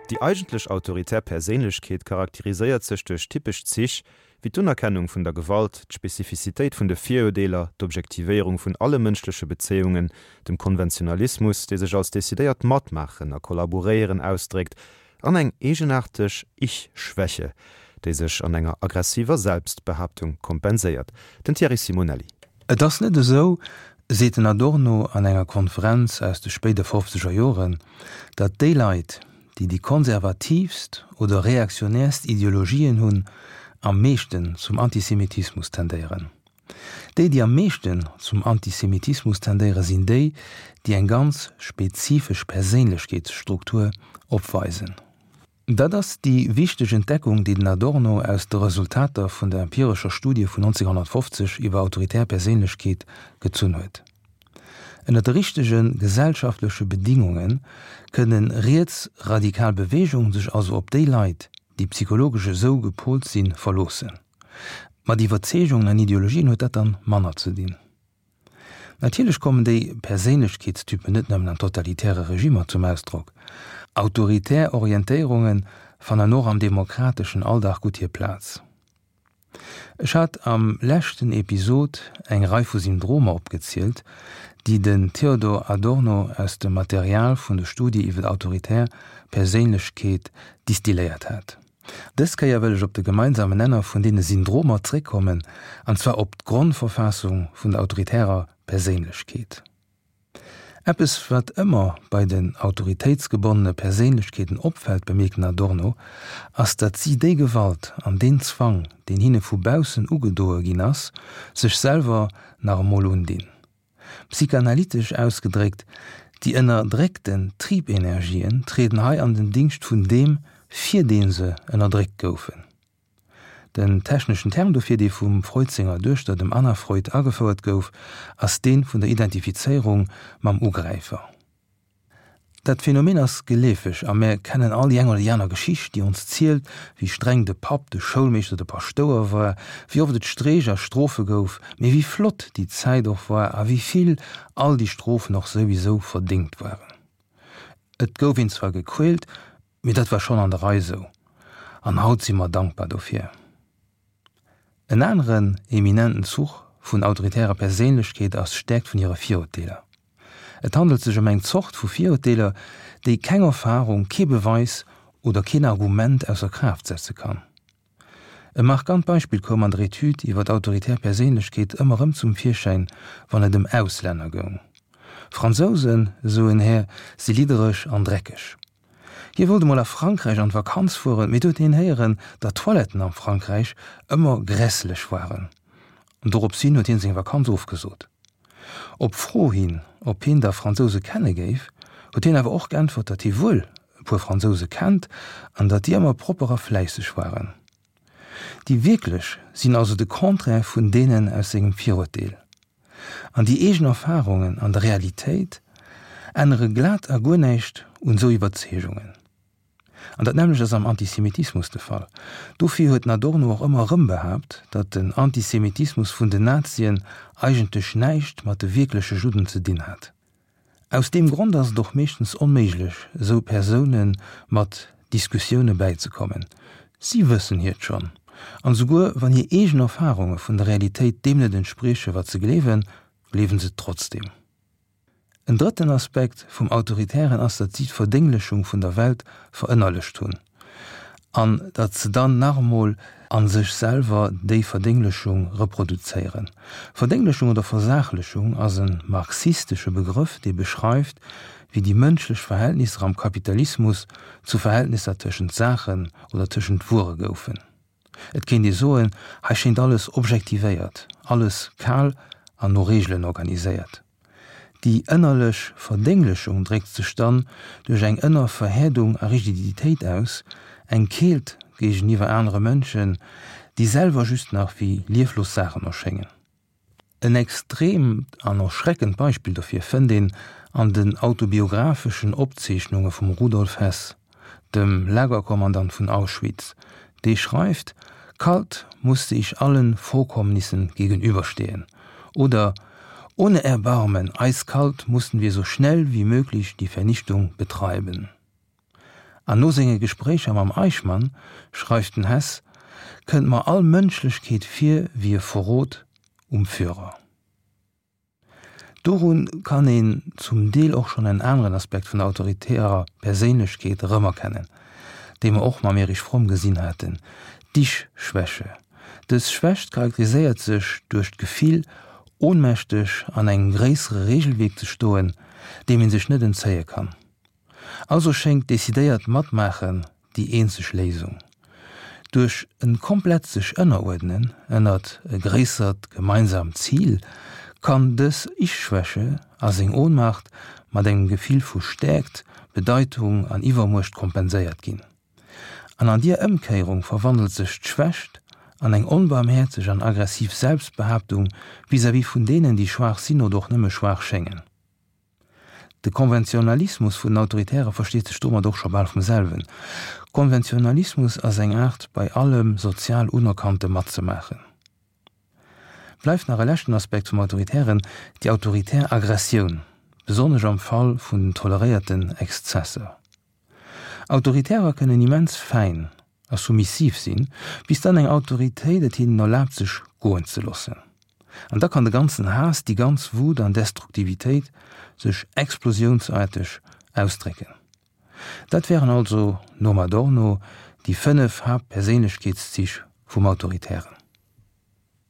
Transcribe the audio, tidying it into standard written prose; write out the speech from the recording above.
Déi eigentlech autoritär Perséinlechkeet charakteriséiert sech duerch typesch Zich wéi d'Unerkennung vun der Gewalt, d'Spezifizitéit vun de Virurdeeler, d'Objektivéierung vun alle mënschleche Bezéiungen, dem Konventionalismus, dee sech als decidéiert Matmaachen a Kollaboréieren ausdréckt, an eng eegenaarteg Ich-Schwäche, déi sech an enger aggressiver Selbstbehaaptung kompenséiert. Den Thierry Simonelli. Et ass net esou, seet den Adorno an enger Konferenz aus de spéide fofzeger Joren, datt déi Leit, déi déi konservatiivst oder reaktionäerst Ideologien hunn, am meeschten zum Antisemitismus tendéieren. Déi, déi am meeschten zum Antisemitismus tendéieren, sinn déi, déi eng ganz spezifesch Perséinlechkeetsstruktur opweisen. Dat ass déi wichteg Entdeckung, déi den Adorno aus de Resultater vun der empirescher Studie vun 1950 iwwer autoritär Perséinlechkeet gezunn huet. Ënner de richtege gesellschaftleche Bedingunge kënne rietsradikal Beweegungen sech also op déi Leit, déi psychologesch esou gepolt sinn, verloossen. Mat Iwwerzeegungen an Ideologien huet dat dann manner ze dinn. Natierlech kommen déi Perséinlechkeetstypen net nëmmen an totalitäre Regimmer zum Ausdrock. Autoritär Orientéierunge fannen och am demokrateschen Alldag gutt hir Plaz. Ech hat am leschten Episod eng Rei vu Syndromer opgezielt, déi den Theodor Adorno aus dem Material vun de Studie iwwer autoritär Perséinlechkeet distilléiert hat. Dës Kéier wëll ech op de gemeinsamen Nenner vun deene Syndromer zréckkommen, an zwar op d'Grondverfassung vun der autoritärer Perséinlechkeet. Eppes, wat ëmmer bei den autoritéitsgebonnene Perséinlechkeeten opfält, bemierkt den Adorno, ass, datt si déi Gewalt an deen Zwang, deen hinne vu baussen ugedoe ginn ass, sech selwer nach emol undinn. Psychanalytesch ausgedréckt, déi ënnerdréckten Triebenergien trieden hei an den Dingscht vun deem, fir dee se ënnerdréckt goufen. Den techneschen Term dofir, dee vum Freud senger Duechter, dem Anna Freud, agefouert gouf, ass dee vun der Identifizéierung mam Ugräifer. Dat Phänomen ass geleefeg a mär kennen all déi eng oder déi aner Geschicht, déi ons zielt, wéi streng de Papp, de Schoulmeeschter, de Paschtouer war, wéi oft et Streech a Strofe gouf, mee wéi flott déi Zäit och war a wéi vill all déi Strofen och souwisou verdéngt waren. Et gouf een zwar gequält, mee dat war schonn an der Rei sou an haut si mer dankbar dofir. En aneren eminenten Zuch vun autoritärer Perséinlechkeet ass d'Stäerkt vun hire Virurteeler. Et handelt sech ëm eng Zort vu Virurteeler, déi keng Erfarung, kee Beweis oder keen Argument ausser Kraaft setze kann. E markant Beispill koum an der Etüd iwwer autoritär Perséinlechkeet ëmmer erëm zum Virschäin, wann et ëm Auslänner goung. Fransousen, esou en Här, si liddereg an dreckeg. Hie wollt emol a Frankräich an d'Vakanz fueren, mee do huet hien héieren, datt d'Toiletten am Frankräich ëmmer grässlech waren. An dorops hin huet hien seng Vakanz ofgesot. Op Fro hin, ob hien da Fransouse kenne géif, huet hien awer och geäntwert, datt hie wuel e puer Fransouse kennt an datt déi ëmmer propper a fläisseg waren. Déi wierklech sinn also de Contraire vun deenen aus sengem Virurteel. An déi eegen Erfarungen an der Realitéit ännere glat a guer näischt un esou Iwwerzeegungen. An dat nämmlecht ass am Antisemitismus de Fall. Dofir huet den Adorno och ëmmer erëm behaapt, datt den Antisemitismus vun den Nazien eigentlech näischt mat de wierkleche Judden ze dinn hat. Aus deem Grond ass et och meeschtens onméiglech, esou Persoune mat Diskussioune bäizekommen. Si wëssen hiert schonn. An esouguer wann hir eegen Erfarunge vun der Realitéit deem net entsprieche wat se gleewen, gleewen se et trotzdeem. En drëtten Aspekt vum Autoritären ass, datt si d'Verdénglechung vun der Welt verënnerlecht hunn an datt se dann nach emol a sech selwer déi Verdénglechung reproduzéieren. Verdénglechung oder Versaachlechung ass e marxistesche Begrëff, dee beschreift, wéi déi mënschlech Verhältnisser am Kapitalismus zu Verhältnisser tëschent Saachen oder tëschent Wuere goufen. Et kéint ee soen, hei schéint alles objektivéiert, alles kal an no Reegelen organiséiert. Déi ënnerlech Verdénglechung dréckt sech dann duerch eng ënner Verhäerdung a Rigiditéit aus, eng Keelt géigeniwwer anere Mënschen, déi selwer just nach wéi lieflos Saachen erschéngen. En extreemt an erschreckend Beispill dofir fënnt een an den autobiographeschen Opzeechnunge vum Rudolf Hess, dem Lagerkommandant vun Auschwitz, dee schreift, Kalt musste ich allen Vorkommnissen gegenüberstehen oder Ohne Erbarmen, eiskalt mussten wir so schnell wie möglich die Vernichtung betreiben. An no senge Gespréicher mam Eichmann, schreift den Hess, kënnt mer all Mënschlechkeet vir wéi e Verrot um Führer. Dorun kann een zum Deel och schonn en aneren Aspekt vun der autoritärer Perséinlechkeet erëmerkennen, dee mer och mam Erich Fromm gesinn haten, d'Ich-Schwäche. Dës Schwächt charakteriséiert sech duerch d'Gefill, ohnmächteg an engem gréissere Regelwierk ze stoen, deem ee sech net entzéie kann. Also schéngt decidéiert Matmaachen déi eenzeg Léisung. Duerch e komplett sech ënneruerdnen ënnert e gréissert gemeinsamt Zil kann dës Ich-Schwäche a seng Ohnmacht mat engem Gefill vu Stäerkt, Bedeitung an Iwwermuecht kompenséiert ginn. An an dier Ëmkéierung verwandelt sech d'Schwächt an eng onbarmhäerzeg an aggressiv Selbstbehaaptung vis-à-vis vun deenen, déi schwaach sinn oder och nëmme schwaach schéngen. De Konventionalismus vun den Autoritäre versteet sech domat och scho bal vum selwen. Konventionalismus ass eng Aart, bei allem sozial Unerkannte matzemaachen. Bleift nach e leschten Aspekt vum Autoritären, déi autoritär Aggressioun, besonnesch am Fall vun den toleréierten Exzesser. Autoritärer kënnen immens fäin a soumissiv sinn, bis dann eng Autoritéit et hinnen erlaabt sech goen ze loossen. An da kann de ganzen Haass, déi ganz Wut an Destruktivitéit sech explosiounsaarteg ausdrécken. Dat wären also, nom Adorno, déi 5 Haaptperséinlechkeetszich vum Autoritären.